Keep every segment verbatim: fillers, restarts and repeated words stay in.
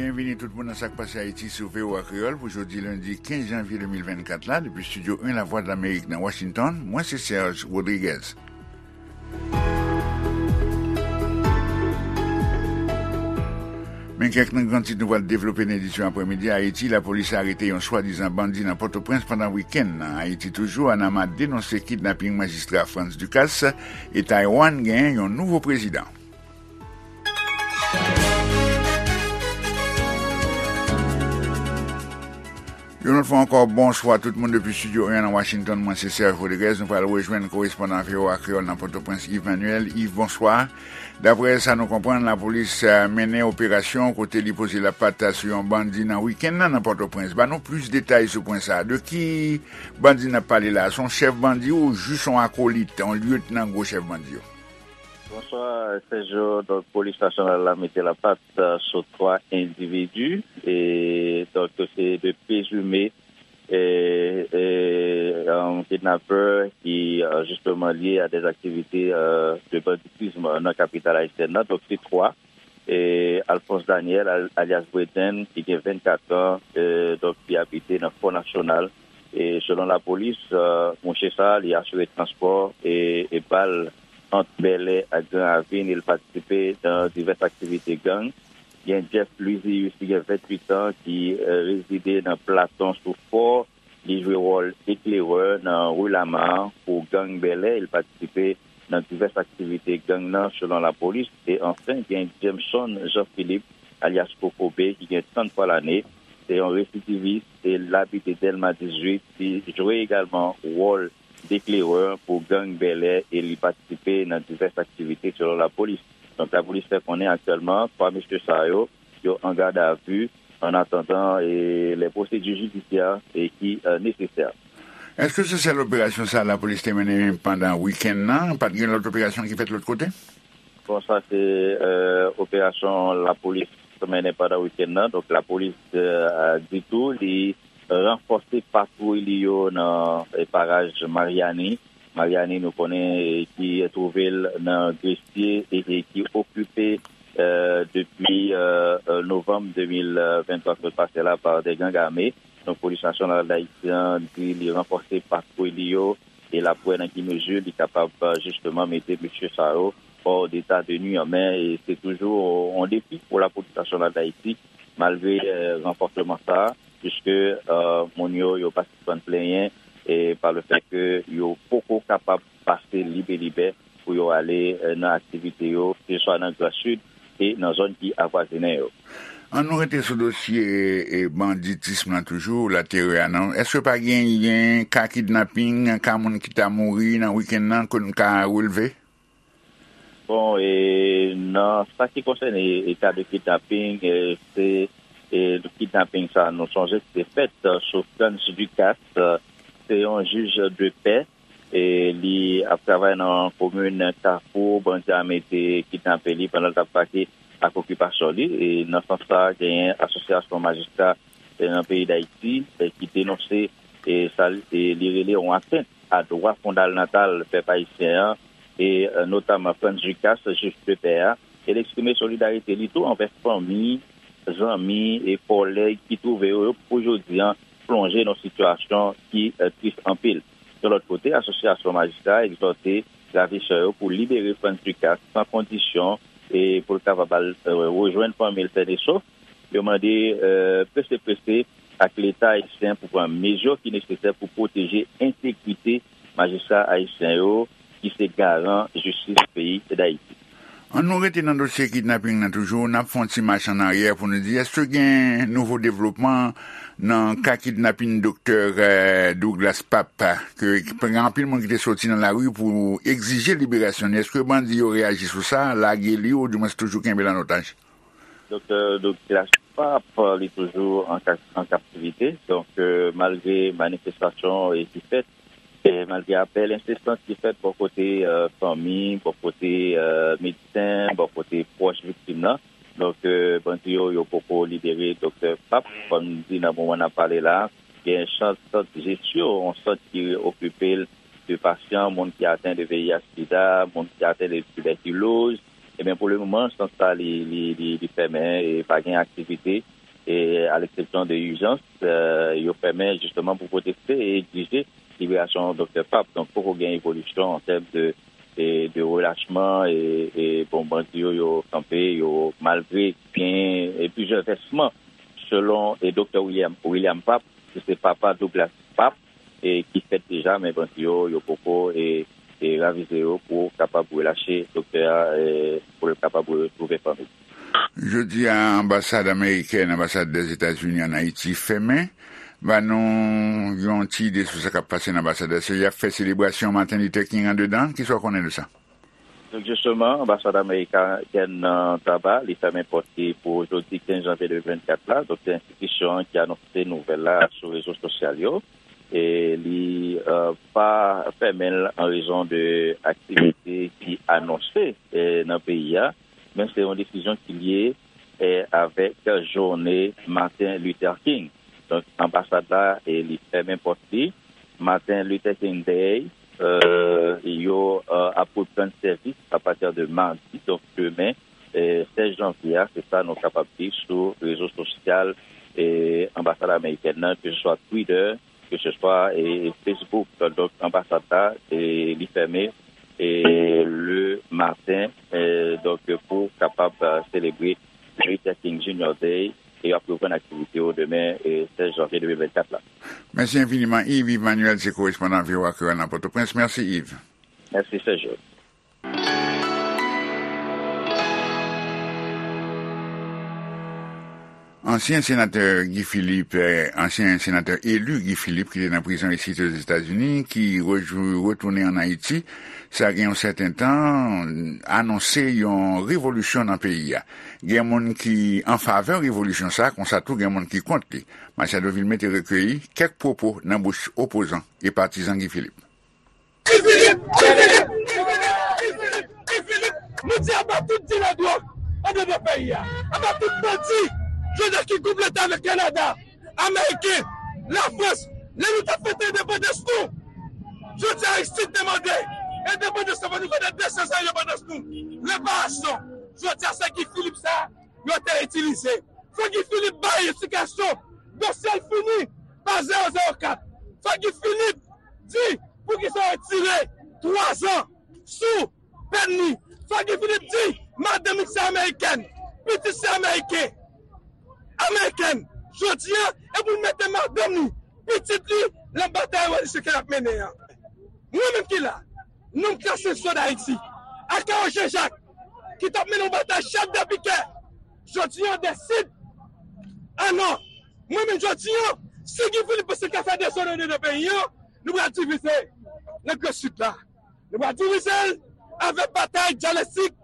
Byenvini tout moun nan Sa k Pase Ayiti sou V O A Kreyòl pou jodi lendi kenz janvye de mil vennkat la, depi Estidyo en Lavwadlamerik nan Washington, mwen se Serge Rodriguez. Men kèk nan gran tit nou pral devlope nan edisyon aprèmidi a. Ayiti, lapolis arete yon swadizan bandi nan Pòtoprens pandan wikenn nan. Ayiti toujou, Anama denonse kidnaping majistra Frantz Ducasse e Taiwan genyen yon nouvo prezidan. Yon lòt fwa ankò, bonswa tout moun depi Estidyo en nan Washington. Mwen se Serge Rodriguez. Nou pral rejwenn korespondan V O A Kreyòl nan Pòtoprens, Yves Manuel. Yves, bonswa. Daprè sa nou konprann, lapolis, eh, mennen operasyon kote li poze lapat sou yon bandi nan wikenn nan, nan Pòtoprens. Ban nou plis detay sou pwen sa a. De ki bandi n ap pale la a? Se yon chèf bandi ou jis yon akolit, yon lyetnan gwo chèf bandi yo? Bonswa, Sergio. Donk, polis nasyonal la mete lapat, eh, sou twa endividi, e donk, se de prezime, e, e, um, kidnapè ki, eh, justement lié à des activités, eh, de banditisme nan kapital ayisyèn nan. Donk, se twa. E Alphonse Daniel, al-, alias Breden, ki gen vennkat an, eh, donk, ki abite nan Fò Nasyonal. E selon lapolis, eh, mouche sa a, li asire transpò e, e bal ant Bèlè ak Gran Ravin, e l patisipe nan divès aktivite gang. Gen Jeff Luizius, ki gen venntuit an, ki, eh, rezide nan Platon sou Fò. Li jwe wòl eklerè nan Rue Lamar pou gang Bèlè. Li patisipe nan divès aktivite gang nan, selon lapolis. E anfen, gen Jameson Jean Philippe, alyas Kokobe, ki gen tranntwa lane. Se yon residivis e l abite Dèlma dizuit. Li jwe egalman wòl deklerè pou gang Bèlè e li patisipe nan divès aktivite, selon lapolis. Donk, lapolis fè konnen aktyèlman, twa mesye sa yo, yo an gadavi, an atandan, e, les procédures judiciaires, e, ki, eh, nesesè. Èske se sèl operasyon sa a lapolis te mennen pandan wikenn nan? Pa t gen lòt operasyon ki fèt lòt kote? Bon, sa se, eh, operasyon lapolis mennen pandan wikenn nan. Donk, lapolis, eh, di tou, li ranfòse patwouy li yo nan, eh, paraj Maryani. Maryani, nou konnen, eh, ki twouve l nan Gresye e, e ki okipe, eh, depi, eh, eh, novanm de mil venntwa k sot pase la pa de gang ame. Donk, Polis Nasyonal Dayiti an di li ranfòse patwouy li yo e l ap wè nan ki mezi li kapab, eh, jisteman mete mesye sa yo hors d'état de nuire. Men, e se toujou yon defi pou Lapolis Nasyonal Dayiti, malgre, eh, ranfòsman sa a, piske, eh, moun yo, yo pa sispann plenyen, e pa le fèt ke yo poko kapab pase libelibè pou yo ale, eh, nan aktivite yo, keseswa nan Gran Sid e nan zòn ki avwazinen yo. Ann nou rete sou dosye, e, banditism nan toujou, laterè a non. Èske pa genyen ka kidnaping, ka moun ki ta mouri nan wikenn nan ke nou ka releve? Bon, e, nan sa ki konsène, e, ka de kidnaping, e, se, e, kidnaping sa, nou sonje ki te fèt, e, sou Frantz Ducasse, e, se yon jij de pè, e, li ap travay nan komin Kafou, bandi ame te kidnape li pandan l t ap brake ak okipasyon li. E nan sans sa, genyen asosyasyon majistra, e, nan peyi Dayiti, e, ki denonse, e, sa, e, li rele yon atent a dwa fondalnatal pèp ayisyen an, e, e, notaman Frantz Ducasse, jij de pè a, e l eksprime solidarite li tou anvè fanmi, zanmi e kòlèg ki twouve yo, yo pou jodi an plonje nan sitiyasyon ki, e, tris anpil. De lòt kote, asosyasyon majistra egzòte ravijè yo pou libere Frantz Ducasse san kondisyon e pou l kapab al, e, rejwenn fanmi l sèn e sof. Yo mande, e, prese prese ak Leta ayisyen pou pran mezi ki nesesè pou pwoteje entegrite majistra ayisyen yo, ki se garan jistis peyi Dayiti. Ann nou rete nan dosye kidnaping nan toujou, n ap fè yon ti mach ann aryè pou nou di, èske gen nouvo devlopman nan ka kidnaping doktè, eh, Douglas Pape, ke, ke gen anpil moun ki te soti nan lari pou egzije liberasyon li? Èske bandi yo reyaji sou sa, lage li, oudimwens toujou kenbe l an otaj? Doktè Douglas Pape, li toujou an ka-, an kaptivite. Donk, e, malgre manifestasyon, e, ki fèt, e, malgre apèl ensesan ki fèt bò kote, e, fanmi, bò kote, e, medsen, bò kote pwòch viktim nan, donk, e, bandi yo, yo poko libere doktè Pape. Kòm di nan moman n ap pale la, gen sant, sant jesyon, yon sant ki okipe l de pasyan, moun ki aten de V I H sida, moun ki aten de tibèkiloz, Ebyen, pou le moman, sant sa li, li, li, li fèmen e pa gen aktivite, e a leksepsyon de ijans, e, yo fèmen jisteman pou pwoteste e egzije liberasyon Doktè Pap. Donk, poko gen evolisyon an tèm de, e, de relachman e, e, bon, bandi yo, yo kanpe, yo malgre gen, e, plizyè vèsman, selon, e, Doktè William, William Pap, ki se papa Douglas Pap, e, ki fèt deja, men bandi yo, yo poko, e, e, ravize yo pou kapab relache doktè a, e, pou l kapab retwouve fanmi. Jodi a, anbasad amerikèn, anbasad Dèzetazini ann Ayiti fèmen. Ba nou yon ti ide sou sa k ap pase nan anbasad la. Se y ap fè selebrasyon Martin Luther King andedan. Kisa w konnen de sa? Donk, jisteman, anbasad amerikèn nan Taba, li fèmen pòt li pou jodi kenz janvye de mil vennkat la. Donk, se enstitisyon an ki anonse nouvèl la sou rezo sosyal yo. E li, e, pa fèmen l an rezon de aktivite ki anonse, e, nan peyi a, men se yon desizyon ki lye, e, avèk jounen Martin Luther King. Donk, anbasad la, e, li fèmen pòt li. Martin Luther King Day, e, yo, e, ap reprann sèvis apati de madi, donk demen, e, sèz janvye a, se sa nou kapab di sou rezo sosyal, e, anbasad amerikèn nan, ke se swa Twitter, ke se swa, e, Facebook. Donk, anbasad la, e, li fèmen, e, le maten, e, donk, pou kapab, e, selebre Luther King Junior Day, e y ap reprann aktivite yo demen, e, sèz janvye de mil vennkat la. Mèsi enfiniman, Yves. Yves Manuel, se korespondan V O A Kreyòl nan Pòtoprens. Mèsi, Yves. Mèsi, Sergio. Ansyen senatè Guy Philippe, eh, ansyen senatè eli Guy Philippe ki te nan prizon isit Ozetazini, ki rejou-, retounen ann Ayiti, sa gen yon sèten tan, anonse yon revolisyon nan peyi a. Gen moun ki an favè revolisyon sa, konsa tou gen moun ki kont li. Machado Vilmé te rekeyi kèk pwopo nan bouch opozan e patizan Guy Philippe. Guy Philippe! Guy Philippe! Guy Philippe! Guy Philippe! Nou di aba tout dilè dwòg anndan peyi a. Aba tout bandi. Jodi a ki gwoup leta avèk Kanada, Ameriken, Lafrans, lè nou t ap fete endepandans nou. Jodi a Ayiti te mande endepandans nou, nou fete de san zan endepandans nou. Reparasyon. Jodi a se Guy Philippe sa yo te itilize. Fò Guy Philippe bay eksplikasyon. Dosye l fini pa zewo zewo kat. Fò Guy Philippe di poukisa yo retire twa zan sou pèn li. Fò Guy Philippe di madanm li se amerikèn, pitit se ameriken, amerikèn. Jodi a, e pou l mete madanm li, pitit li, nan batay revolisyon ke l ap mennen an. Mwen menm ki la, nonm klase swa d Ayiti, Akawo Jean Jacques, ki t ap mennen yon batay chèf de pikè, jodi a deside, a non, mwen menm jodi a, si Guy Philippe panse l ka fè dezòd anndan peyi a, nou pral divize nan Gran Sid la. Nou pral divize l avèk batay dyalektik,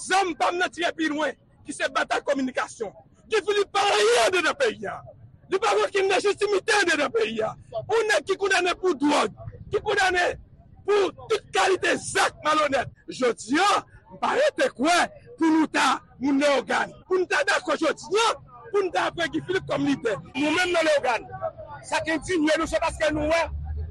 zam pa m nan tire pi lwen, ki se batay kominikasyon. Guy Philippe pa anyen anndan peyi a. Li pa gen okenn lejitimite anndan peyi a. Yon nèg ki kondane pou dwòg, ki kondane pou tout kalite zak malonèt. Jodi a, m pa rete kwè pou nou ta moun Leyogàn. Pou n ta dakò jodi a, pou n ta pran Guy Philippe kòm lidè. Nou menm nan Leyogàn, sa k endinye nou, se paske nou wè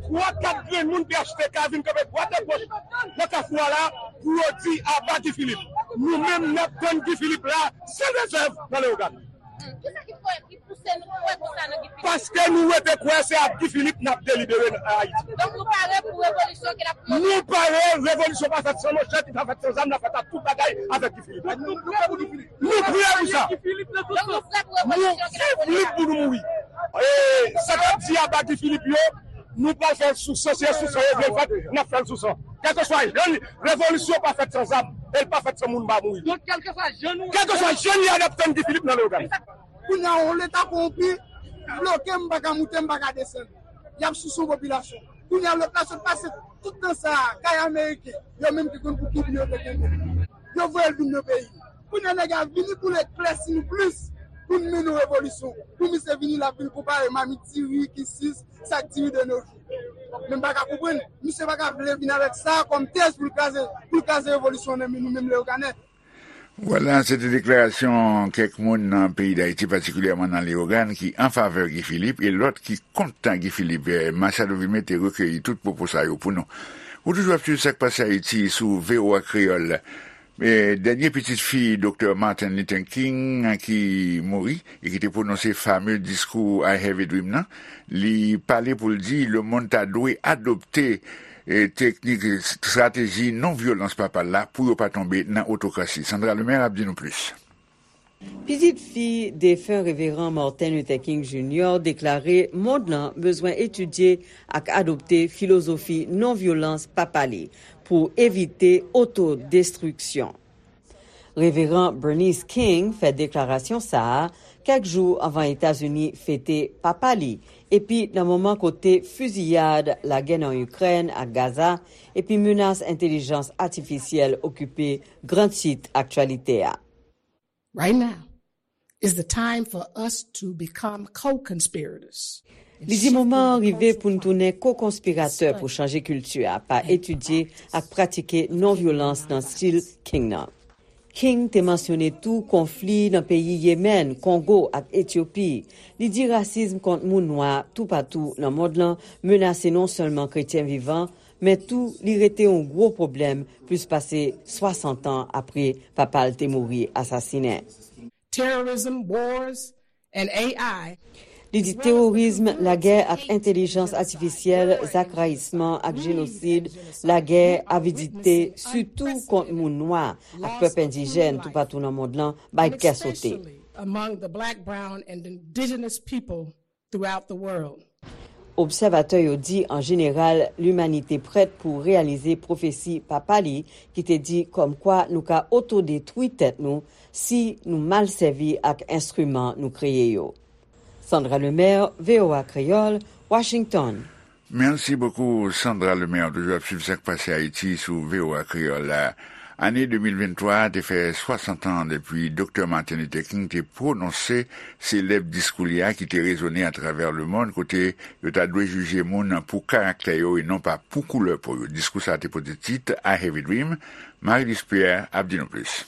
twa, kat grenn moun P H T K vin kanpe dwat e goch nan kafou a la pou yo di aba Guy Philippe. Nou menm, n ap tann Guy Philippe la san rezèv nan Leyogàn. Kisa ki fè, ki pouse nou kwè konsa nan Guy Philippe? Paske nou rete kwè se ak Guy Philippe n ap delibere nan Ayiti. Donk, nou pare pou revolisyon ke l ap pwomèt? Nou pare, revolisyon pa fèt san manchèt, li pa fèt san zam, l ap fèt ak tout bagay avèk Guy Philippe. Donk, nou prè pou nou, nou prè pou sa. Donk, nou prè pou revolisyon ke l ap pwomèt? Nou viv lit pou nou mouri. E sa k ap di aba Guy Philippe yo, nou pral fè l sou san, se sou san yo vle l fèt, n ap fè l sou san. Kèlkeswa jan li, revolisyon pa fèt san zam, e l pa fèt san moun pa mouri. Donk, kèlkeswa jan nou, kèlkeswa jan li a, n ap tann Guy Philippe nan Leyogàn. Kounye a, yon leta kowonpi bloke m, m pa ka moute, m pa ka desann. Y ap souse yon popilasyon. Kounye a, lòt la sot pase tout tan sa a, kay ameriken, yo menm ki konn pou ki byen yo te kenbe. Yo voye l vin nan peyi. Kounye a, nèg la vini pou l eklèsi nou plis, pou n mennen yon revolisyon. Pou misye vini, l ap vin konpare mamit diri, kisis, sak diri de nos jours. Men m pa ka konprann. Misye pa ka vle vin avèk sa kòm tèz pou l kraze, pou l kraze revolisyon nan men nou menm Leyoganè. Vwala, se te deklarasyon kèk moun nan peyi Dayiti, patikilyèman nan Leyogàn, ki an favè Guy Philippe e lòt ki kont Guy Philippe. Machado Vilmé te rekeyi tout pwopo sa yo pou nou. Ou toujou ap swiv Sa k Pase Ayiti sou V O A Kreyòl. E, dènye pitit fi Doktè Martin Luther King ki mouri e ki te pwononse fame diskou I Have a Dream nan, li pale pou l di lemonn ta dwe adopte, e, teknik, estrateji non vyolans papa l la pou yo pa tonbe nan otokrasi. Sandra Lemaire ap di nou plis. Pitit fi defen Reveran Martin Luther King Junior deklare mond lan bezwen etidye ak adopte filozofi non vyolans papa li pou evite otodestriksyon. Reveran Bernice King fè deklarasyon sa a kèk jou anvan Etazini fete papa li, epi nan moman kote fiziyad, lagè nan Ikrèn ak Gaza, epi menas entèlijans atifisyèl okipe gran tit aktyalite a. Right now is the time for us to become co-conspirators. Li di moman an rive pou n tounen ko-konspiratè pou chanje kilti a pa etidye ak pratike non-vyolans nan stil King nan. King te mansyone tou konfli nan peyi Yemèn, Kongo ak Etyopi. Li di rasism kont moun nwa toupatou nan mond lan menase non sèlman kretyen vivan, men tou li rete yon gwo pwoblèm plis pase swasant an apre papa l te mouri asasinen. Terrorism, wars, and A I. Li di teworism, lagè ak entèlijans atifisyèl, zak rayisman ak jenosid, lagè, avidite, sitou kont moun nwa ak pèp endijèn toupatou nan mond lan, bay kè sote. Among the black, brown, and indigenous people throughout the world. Obsèvatè yo di an jeneral limanite prèt pou reyalize pwofesi papa li ki te di kòmkwa nou ka otodetwi tèt nou si nou mal sèvi ak enstriman nou kreye yo. Sandra Lemaire, V O A Kreyòl, Washington. Mèsi bokou Sandra Lemaire, toujou ap swiv sa k pase Ayiti sou V O A Kreyòl la. Ane de mil venntwa a te fè swasant an depi Doktè Martin Luther King te pwononse selèb diskou li a ki te rezone atravè lemonn kote yo ta dwe jije moun pou karaktè yo e non pa pou koulè po yo. Diskou sa a te pote tit I Have a Dream. Marie Luce Pierre ap di nou plis.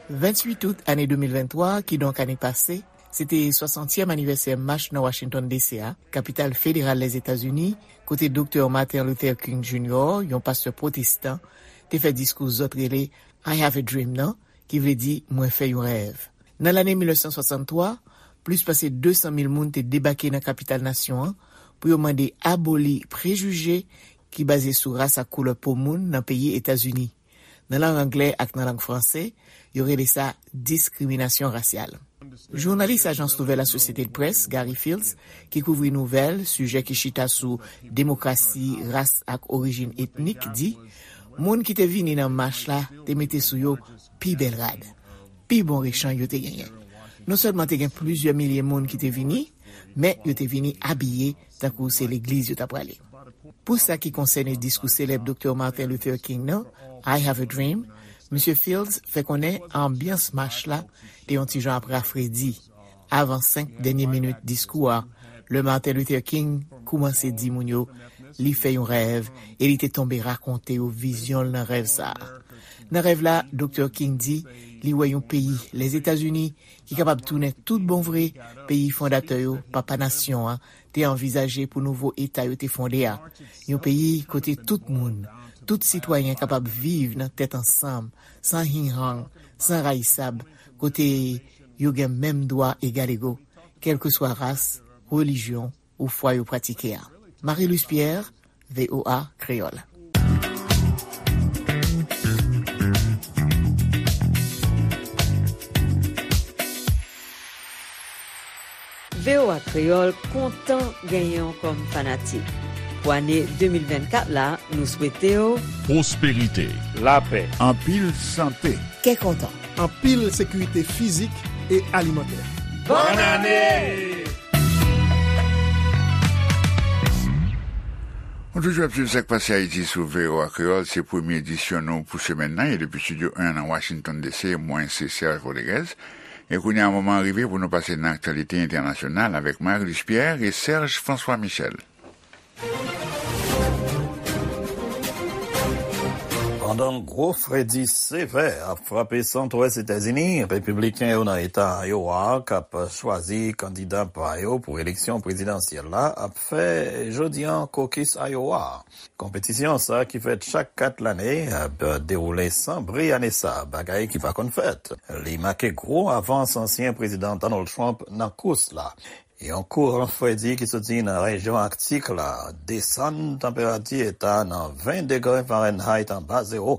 Venntuit out ane de mil venntwa, kidonk ane pase, se te swasantyèm anivèsè mach nan Washington D C a, kapital federal Lèzetazini, kote Doktè Martin Luther King Junior, yon pastè pwotestan, te fè diskou zòt rele I Have a Dream nan, ki vle di Mwen fè yon rèv. Nan lane mil nèf san swasanntwa, plis pase de san mil moun te debake nan kapital nasyon an pou yo mande aboli prejije ki baze sou ras ak koulè po moun nan peyi Etazini. Nan lang anglè ak nan lang franse, yo rele sa diskriminasyon rasyal. Jounalis ajans nouvèl Associated Press, Gary Fields, ki kouvri nouvèl, sijè ki chita sou demokrasi, ras ak orijin etnik, di, moun ki te vini nan mach la te mete sou yo pi bèl rad, pi bon rechanj yo te genyen. Non sèlman te gen plizyè milye moun ki te vini, men yo te vini abiye tankou se legliz yo t ap prale. Pou sa ki konsène diskou selèb Doktè Martin Luther King nan, I Have a Dream, Misye Fields fè konnen anbyans mach la te yon ti jan ap rafredi avan senk dènye minit diskou a, lè Martin Luther King koumanse di moun yo li fè yon rèv e li te tonbe rakonte yo vizyon l nan rèv sa a. Nan rèv la, Doktè King di li wè yon peyi, Lèzetazini, ki kapab tounen tout bon vre peyi fondatè yo, papa nasyon an, te anvizaje pou nouvo eta yo te fonde a. Yon peyi kote tout moun, tout sitwayen kapab viv nan tèt ansanm, san hinghang, san rayisab, kote yo gen menm dwa egalego, kèlkeswa ras, relijyon ou fwa yo pratike a. Marie Luce Pierre, V O A Kreyòl. V O A Kreyòl kontan genyen w kòm fanatik. Pou ane de mil vennkat la, nou swete w pwosperite, lapè, anpil sante, kè kontan, anpil sekirite fizik e alimantè. Bòn ane! Nou toujou ap swiv sa k pase Ayiti sou V O A Kreyòl. Se premye edisyon nou pou semèn nan. E depi estidyo en nan Washington D C, mwen se Serge Rodriguez. E kounye a, moman an rive pou nou pase nan aktyalite entènasyonal avèk Marie Luce Pierre e Serge François Michel. Pandan gwo fredi sevè ap frape santwès Etazini, repibliken yo nan eta Iowa k ap chwazi kandida pa yo pou eleksyon prezidansyèl la ap fè jodi a kokis Iowa. Konpetisyon sa ki fèt chak kat lane ap dewoule san bri ane sa, bagay ki pa konn fèt. Li make gwo avans ansyen prezidan Donald Trump nan kous la. Yon kouran fredi ki soti nan rejyon Aktik la desann tanperati eta nan ven degre Fahrenheit anba zewo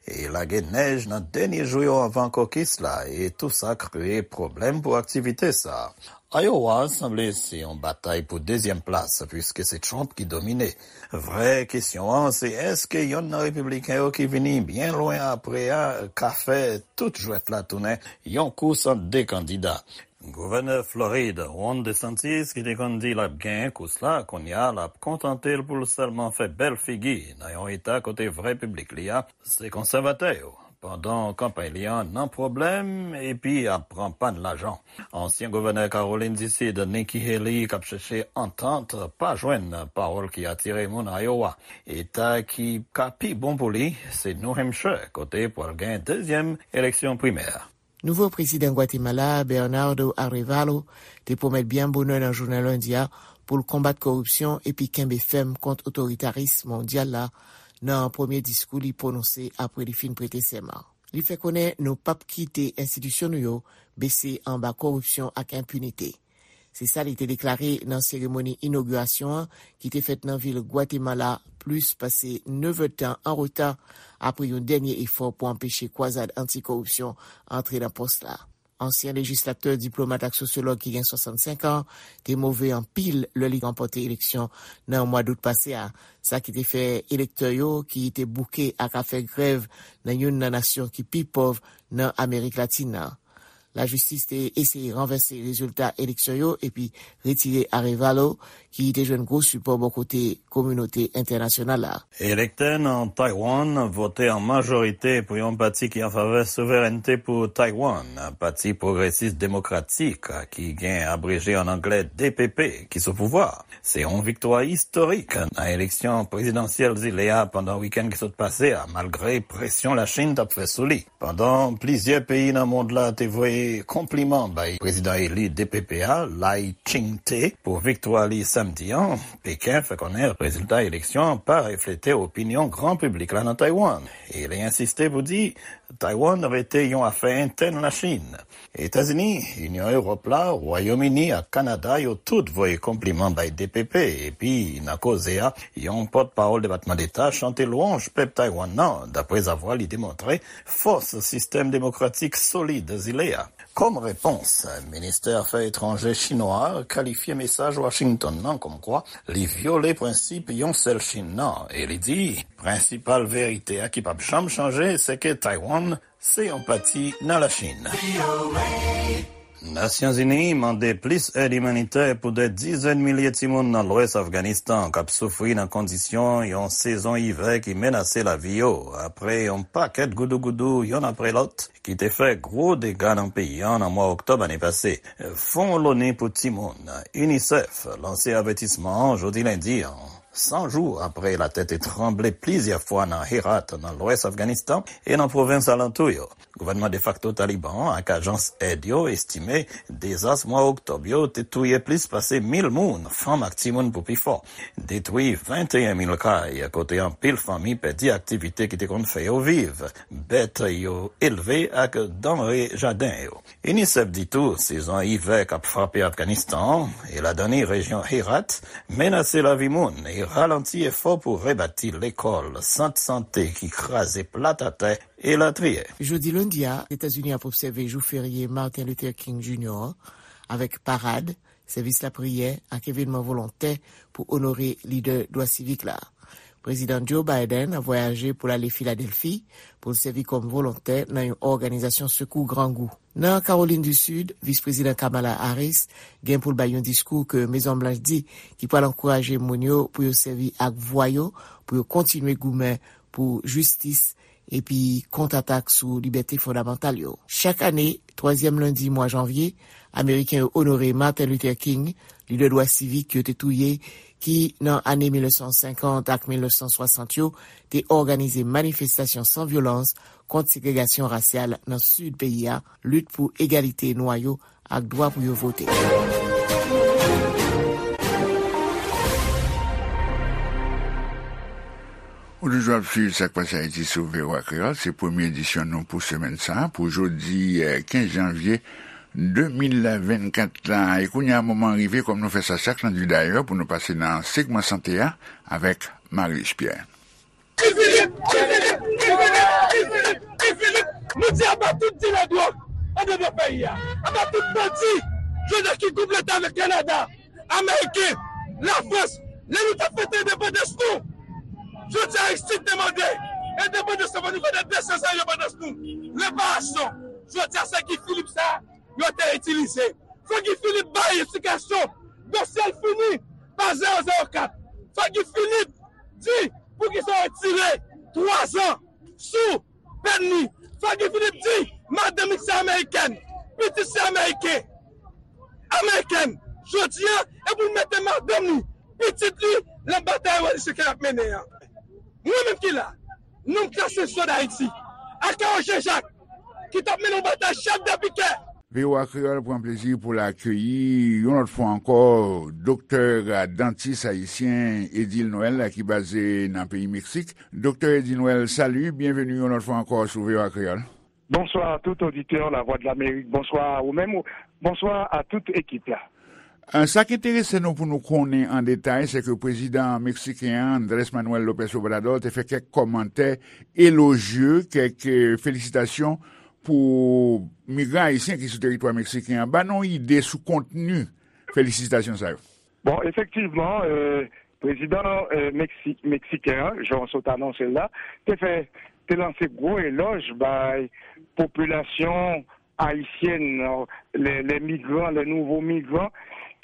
e lage nèj nan dènye jou yo anvan kokis la, e tou sa kreye pwoblèm pou aktivite sa. Iowa sanble se yon batay pou dezyèm plas, piske se Trump ki domine. Vrè kesyon an se èske yonn nan repibliken yo ki vini byen lwen apre a ka fè tout jwèt la tounen yon kous ant de kandida. Gouvènè Florid, Ron DeSantis, ki te konn di l ap genyen kous la, kounye a l ap kontante l pou l sèlman fè bèl figi nan yon eta kote vrè piblik li a se konsèvatè yo, pandan kanpay li an nan pwoblèm epi ap pran pàn lajan. Ansyen gouvènè Kawolin di Sid, Nikki Haley, k ap chèche antant, pa jwenn pawòl ki atire moun Iowa. Eta ki ka pi bon pou li se New Hampshire, kote pral gen dezyèm eleksyon primè. Nouvo prezidan Gwatemala, Bernardo Arevalo, te pwomèt byen bonè nan jounen lendi a pou l konbat koripsyon epi kenbe fèm kont otoritaris mondyal la nan premye diskou li pwononse apre li fin prete sèman. Li fè konnen nou p ap kite enstitisyon nou yo bese anba koripsyon ak enpinite. Se sa li te deklare nan seremoni inogirasyon an ki te fèt nan vil Gwatemala plis pase nèf èdtan an reta apre yon dènye efò pou anpeche kwazad anti-koripsyon antre nan pòs la. Ansyen lejislatè, diplomat ak sosyològ ki gen swasannsenk an te move anpil lè li ranpòte eleksyon nan mwa dout pase a, sa ki te fè elektè yo ki te bouke ak afè grèv nan youn nan nasyon ki pi pòv nan Amerik Latin nan. Lajistis te eseye ranvèse rezilta eleksyon yo epi retire Arevalo, ki te jwenn gwo sipò bò kote kominote entènasyonal la. Elektè nan Taiwan vote an majorite pou yon pati ki an favè souverènte pou Taiwan, Pati Pwogresis Demokratik, ki gen abreje an anglè D P P, ki sou pouvwa. Se yon viktwa istorik nan eleksyon prezidansyèl zile a pandan wikenn ki sot pase a, malgre presyon Lachin t ap fè sou li. Pandan plizyè peyi nan mond la te voye konpliman bay prezidan eli D P P a, Lai Ching-te, pou viktwa li samdi an, Peken fè konnen rezilta eleksyon an pa reflete opinyon gran piblik la nan Taiwan, e li ensiste pou di Taiwan rete yon afè entèn Lachin. Etazini, Inyon Ewòp la, Wayòm Ini ak Kanada, yo tout voye konpliman bay D P P, epi nan koze a, yon pòtpawòl Depatman Deta chante lwanj pèp Taiwan nan, daprezavwa li demontre fòs sistèm demokratik solid zile a. Kòm repons, ministè afè etranjè chinwa a kalifye mesaj Washington nan kòmkwa li vyole prensip yon sèl Chin nan, e li di, prensipal verite a ki p ap janm chanje, se ke Taiwan se yon pati nan Lachin. Nasyonzini mande plis èd imanitè pou dè dizèn milye timoun nan lwès Afganistan k ap soufri nan kondisyon yon sezon ivè ki menase lavi yo, apre yon pakèt goudougoudou yonn apre lòt ki te fè gwo dega nan peyi an nan mwa oktòb ane pase. Fon Loni pou Timoun, UNICEF, lanse avètisman an jodi lendi an, san jou apre latè te tranble plizyè fwa nan Herat, nan lwès Afganistan, e nan pwovens alantou yo. Gouvènman defakto Taliban an ak ajans èd yo estime dezas mwa oktòb yo te touye plis pase mil moun, fanm ak timoun pou pi fò, detwi venteyen mil kay, kote anpil fanmi pèdi aktivite ki te konn fè yo viv, bèt yo elve ak danre jaden yo. UNICEF di tou, sezon ivè k ap frape Afganistan an, e ladan li rejyon Herat, menase lavi moun e ralanti efò pou rebati lekòl, sant sante ki kraze plat atè, elatriye. Jodi lendi a, Etazini ap obsève jou ferye Martin Luther King Junior, avèk parad, sèvis lapriyè ak evènman volontè pou onore lidè dwa sivik la. Prezidan Joe Biden ap vwayaje pou l ale Filadèlfi pou l sèvi kòm volontè nan yon òganizasyon sekou grangou. Nan Kawolin di Sid, Vis Prezidan Kamala Harris gen pou l bay yon diskou ke Mezon Blanch di ki pral ankouraje moun yo pou yo sèvi ak vwa yo pou yo kontinye goumen pou jistis epi kontratak sou libète fondamantal yo. Chak ane, twazyèm lendi mwa janvye, Ameriken yo onore Martin Luther King, lidè dwa sivik yo te touye, ki, nan ane mil nèf san senkant ak mil nèf san swasant yo, te òganize manifestasyon san vyolans kont segregasyon rasyal nan sid peyi a, lit pou egalite nwa yo ak dwa pou yo vote. Ou toujou ap swiv Sa k Pase Ayiti sou V O A Kreyòl. Se premye edisyon nou pou semèn sa a, pou jodi, eh, kenz janvye de mil vennkat la. E kounye a, moman an rive, kòm nou fè sa chak lendi dayè, pou nou pase nan segman sante a avèk Marius Pierre. Guy Philippe! Guy Philippe! Guy Philippe! Guy Philippe! Guy Philippe! Nou di aba tout dilè dwòg anndan peyi a. Aba tout bandi, jodi a ki konplete avèk Kanada, Ameriken, Lafrans. Lè nou t ap fete endepandans nou, jodi a Ayiti te mande endepandans nou, fò nou fete de san zan endepandans nou. Reparasyon, jodi a se Guy Philippe sa a yo te itilize. Fò Guy Philippe bay eksplikasyon. Dosye l fini pa zewo zewo kat. Fò Guy Philippe di poukisa yo retire twa zan sou pèn li. Fò Guy Philippe di madanm li se amerikèn, pitit se ameriken, amerikèn. Jodi a, e pou l mete madanm li, pitit li, nan batay revolisyon ke l ap mennen an. Mwen menm ki la, nonm klase sòl Ayiti, Akawo Jean Jacques, ki t ap mennen yon batay chèf de pikè. V O A Kreyòl pran plezi pou l akeyi yon lòt fwa ankò Doktè Dantis Ayisyen Edil Noël ki baze nan peyi Meksik. Doktè Edil Noël, salut, byenveni yon lòt fwa ankò sou V O A Kreyòl. Bonsoir à tout auditeur La Voix de l'Amérique. Bonsoir à vous-même. Bonsoir à toute équipe là. Euh, sa k enterese nou pou nou konnen an detay, se ke prezidan meksiken an, Andrés Manuel López Obrador, te fè kèk kòmantè elojye, kèk, euh, felisitasyon pou migran ayisyen ki sou teritwa meksiken an. Ba nou yon ide sou kontni felisitasyon sa yo. Bon, efektivman, euh, prezidan, euh, Meksi-, meksiken an, jan w sot anonse l la, te fè, te lanse gwo elòj bay popilasyon ayisyèn, euh, les, les migrants, les nouveaux migrants,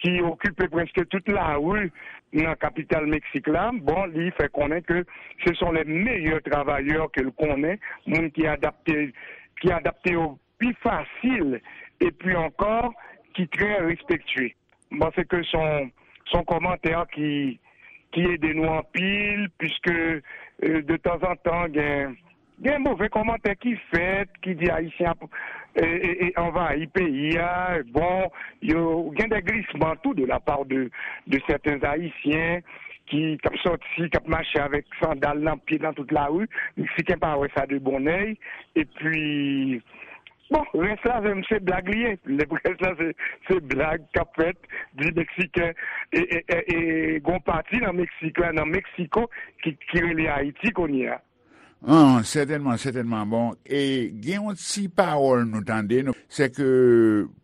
ki okipe prèske tout lari nan kapital Meksik la. Bon, li fè konnen ke ce sont les meilleurs travailleurs ke l konnen, moun ki adapte, ki adapte yo pi fasil, epi ankò, ki trè respektye. M panse ke se yon, se yon kòmantè ki, ki ede nou anpil, piske, euh, de tanzantan, gen, gen move kòmantè ki fèt, ki di Ayisyen ap, e, e, e, anvayi peyi a. Bon, yo, gen de glisman tou de la part de, de certains Haïtiens ki, k ap sòti, k ap mache avèk sandal nan pye nan tout lari. Meksiken pa wè sa de bon èy. Epi, bon, rès la, se, se blag li ye. Lè rès la, se, se blag k ap fèt, di Meksiken, e, e, e, e, gon pati nan Meksik la, nan Meksiko, ki, ki rele Ayiti kounye a. An, sètènman, sètènman. Bon, e gen yon ti pawòl nou tande, nou, se ke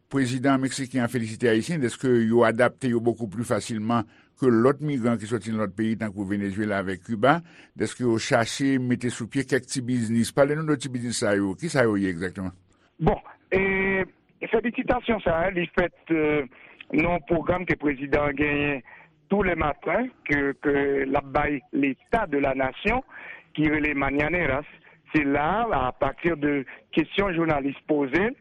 prezidan meksiken an felisite Ayisyen dèske yo adapte yo bokou pli fasilman ke lòt migran ki sòti nan lòt peyi, tankou Venezuela avèk Kiba, dèske yo chache mete sou pye kèk ti biznis. Pale nou de ti biznis sa yo. Ki sa yo ye egzakteman? Bon, e felisitasyon sa a, li fèt, euh, nan yon pwogram ke prezidan an genyen tou lè maten, ke, ke l ap bay Leta de la Nasyon, ki rele Mañaneras. Se la, a pati de kesyon jounalis poze l,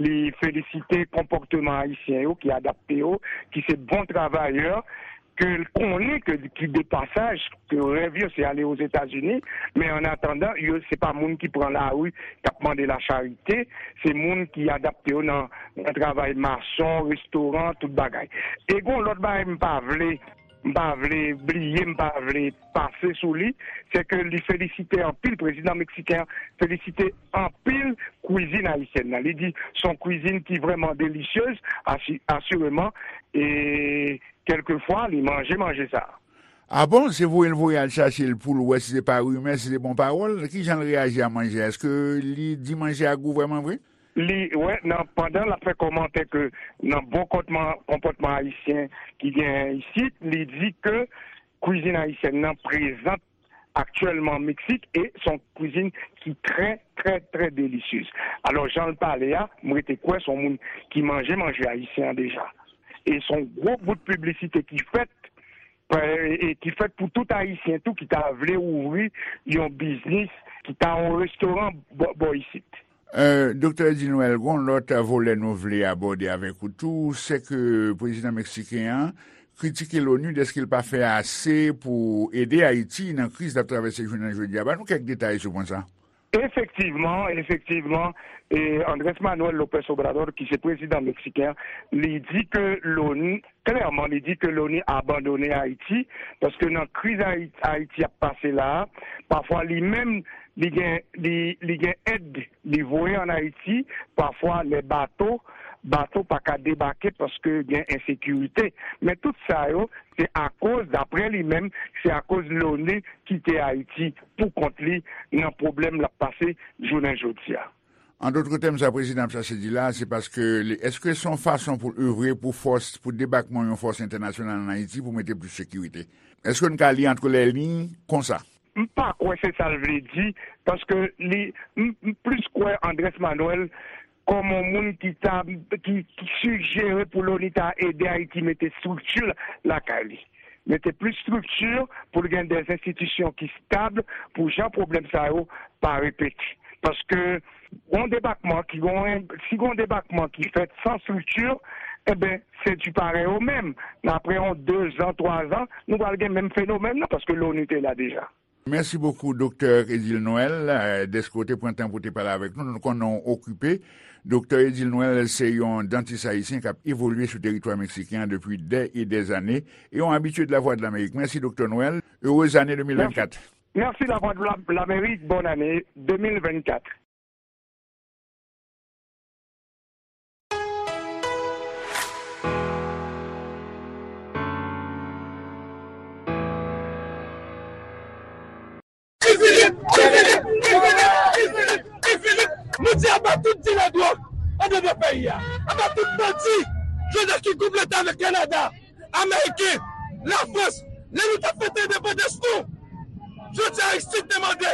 li felisite konpòteman ayisyen yo ki adapte yo, ki se bon travayè, ke l konnen ke, ki de pasaj, ke rèv yo se ale Ozetazini, men an atandan, yo se pa moun ki pran lari, k ap mande lacharite, se moun ki adapte yo nan, nan travay mason, restoran, tout bagay. E gon lòt bagay m pa vle, m pa vle bliye, m pa vle pase sou li, se ke li felisite anpil, prezidan meksiken an felisite anpil kwizin ayisyèn nan. Li di se yon kwizin ki vrèman delisyez, asi-, asireman, e kèlkefwa, li manje manje sa a. A bon? Se voye l voye al chache l pou l wè si se pa rimè, si se bon pawòl. Kijan l reyaji a manje a? Èske li di manje a gou vrèman vre? Li, wè, nan, pandan l ap fè kòmantè ke nan bon kòtman, konpòtman ayisyen ki genyen isit, li di ke kwizin ayisyèn nan prezan aktyèlman Meksik, e se yon kwizin ki trè, trè, trè delisyez. Alò, jan l pale a, m rete kwè se yon moun ki manje manje ayisyen an deja. E se yon gwo bout piblisite ki fèt, e, e ki fèt pou tout Ayisyen tou ki ta vle ouvri yon biznis, ki ta yon restoran bò, bò isit. Euh, Doktè Edil Noël, gon lòt volè nou vle abòde avèk ou tou, se ke prezidan meksiken an, kritike Loni dèske l pa fè ase pou ede Ayiti nan kriz l ap travèse jounen jodi a. Ban nou kèk detay sou pwen sa. Efektivman, efektivman, e Andrés Manuel López Obrador, ki se prezidan meksiken an, li di ke Loni, klèman, li di ke Loni abandone Ayiti, paske nan kriz Ayi-, Ayiti ap pase la a, pafwa li menm, li gen, li, li gen èd li voye ann Ayiti, pafwa lè bato, bato pa ka debake paske gen ensekirite. Men tout sa yo, se akoz, daprè li menm, se akoz Loni kite Ayiti pou kont li nan pwoblèm l ap pase jounen jodi a. An dòt tèm, sa prezidan ap chache di la, se paske li, èske se yon fason pou l evre pou fòs, pou debakman yon fòs entènasyonal ann Ayiti pou mete plis sekirite? Èske n ka li antre lè liy konsa? M pa kwè se sa l vle di, paske li, m, m plis kwè Andrés Manuel kòm yon moun ki ta, ki, ki sijere pou Loni ta ede Ayiti mete estrikti lakay li. Mete plis estrikti pou l gen de enstitisyon ki estab pou jan pwoblèm sa yo pa repete. Paske yon debakman ki gon, si gon debakman ki fèt san estrikti, enben, se di parèy o menm. Nan apre yon de zan, twa zan, nou pral gen menm fenomèn nan, paske Loni te la deja. Mèsi bokou, Doktè Edil Noël, eh, dèske w te pran tan pou w te pale avèk nou. Nou konnen w okipe. Doktè Edil Noël se yon dantis ayisyen k ap evolye sou teritwa meksiken an depi dè e dè zane e yon abitye de Lavwadlamerik. Mèsi, Doktè Noël. Erez ane de mil vennkat. Mèsi, Lavwadlamerik. Bòn ane de mil vennkat. Guy Philippe, Guy Philippe, Guy Philippe, Guy Philippe, Guy Philippe. Nou di aba tout dilè dwòg anndan peyi a. Aba tout bandi, jodi a ki konplote avèk Kanada, Ameriken, Lafrans, lè nou t ap fete endepandans nou. Jodi a Aristide te mande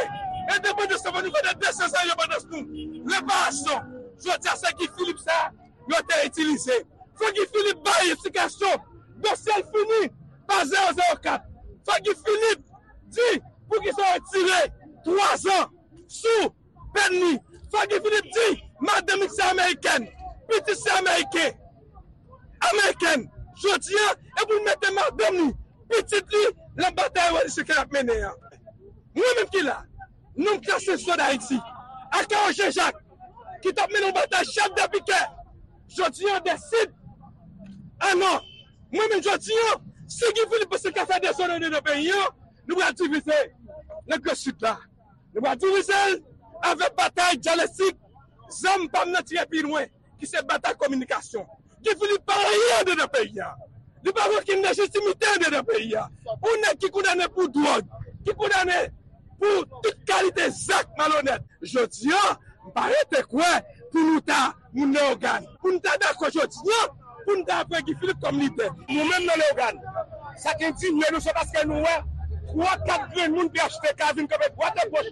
endepandans nou, nou fete de san zan endepandans nou. Reparasyon. Jodi a se Guy Philippe sa yo te itilize. Fò Guy Philippe bay eksplikasyon. Dosye l fini pa zewo zewo kat. Fò Guy Philippe di poukisa yo tire twa zan sou pèn li. Fò Guy Philippe di madanm li se amerikèn, pitit se ameriken, amerikèn. Jodi a, e pou l mete madanm li, pitit li, nan batay revolisyon ke l ap mennen an. Mwen menm ki la, nonm klase swa d Ayiti, Akawo Jean Jacques, ki t ap mennen yon batay chèf de pikè, jodi a deside, a non, mwen menm jodi a, si Guy Philippe panse l ka fè dezòd anndan peyi a, nou pral divize nan Gran Sid la. Nou pral divize l avèk batay dyalektik, zam pa m nan tire pi lwen, ki se batay kominikasyon. Guy Philippe pa anyen anndan peyi a. Li pa gen okenn lejitimite anndan peyi a. Yon nèg ki kondane pou dwòg, ki kondane pou tout kalite zak malonèt. Jodi a, m pa rete kwè pou nou ta moun Leyogàn. Pou n ta dakò jodi a, pou n ta pran Guy Philippe kòm lidè. Nou menm nan Leyogàn, sa k endinye nou, se paske nou wè twa, kat grenn moun P H T K vin kanpe dwat e goch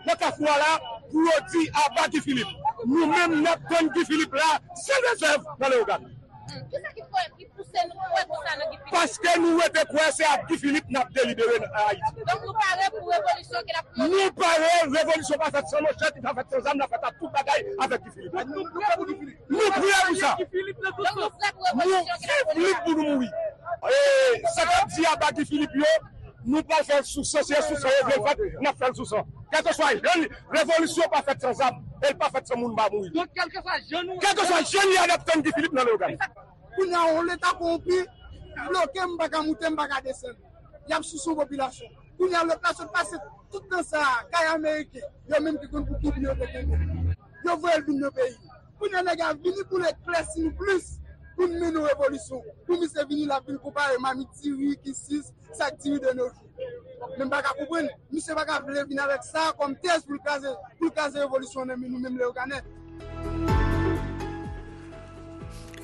nan kafou a la pou yo di aba Guy Philippe. Nou menm, n ap tann Guy Philippe la san rezèv nan Leyogàn. Hmm, kisa ki fè, ki pouse nou kwè konsa nan Guy Philippe? Paske nou rete kwè se ak Guy Philippe n ap delibere nan Ayiti. Donk, nou pare pou revolisyon ke l ap Nou pare, revolisyon pa fèt san manchèt, li pa fèt san zam, l ap fèt ak tout bagay avèk Guy Philippe. Nou, nou prè pou Guy Philippe. Nou prè pou sa. Donk, nou prè pou revolisyon ke l ap mennen. Nou viv lit pou nou mouri. E sa k ap di aba Guy Philippe yo, nou pral fè l sou san, se sou san yo vle l fèt, n ap fè l sou san. Kèlkeswa jan li, revolisyon pa fèt san zam, e l pa fèt san moun pa mouri. Donk, kèlkeswa jan nou, kèlkeswa jan li a, n ap tann Guy Philippe nan Leyogàn. Kounye a, yon leta kowonpi bloke m, m pa ka moute, m pa ka desann. Y ap souse yon popilasyon. Kounye a, lòt la sot pase tout tan sa a, kay ameriken, yo menm ki konn pou ki byen yo te kenbe. Yo voye l vin nan peyi. Kounye a, nèg la vini pou l eklèsi nou plis, pou n mennen yon revolisyon. Pou misye vini, l ap vin konpare mamit diri, kisis, sak diri de nos jours. Men m pa ka konprann, misye pa ka vle vin avèk sa kòm tèz pou l kraze, pou l kraze revolisyon nan men nou menm Leyoganè.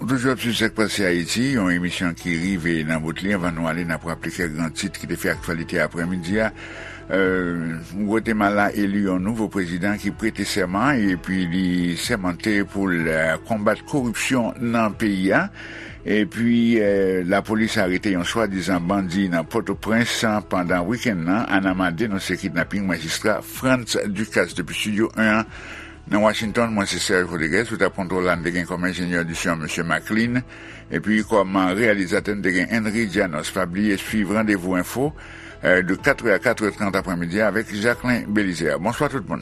Ou toujou ap swiv Sa k Pase Ayiti, yon emisyon ki rive nan bout li. Anvan nou ale, n ap raple kèk gran tit ki te fè aktyalite aprèmidi a. Euh, Gwatemala eli yon nouvo prezidan ki prete sèman epi li sèmante pou l, euh, konbat koripsyon nan peyi a. Epi, euh, lapolis arete yon swadizan bandi nan Pòtoprens pandan wikenn nan. Anama denonse kidnaping majistra Frantz Ducasse depi Estidyo en an. Nan Washington, mwen se Serge Rodriguez, sou tab kontwòl la, n te gen kòm enjenyè di son, mesye Maclean, epi kòm reyalizatè, n te gen Henry Janos. Pa bliye swiv Randevou Enfo, eh, de quatre heures à quatre heures trente aprèmidi avèk Jacquelin Belizaire. Bonswa tout moun.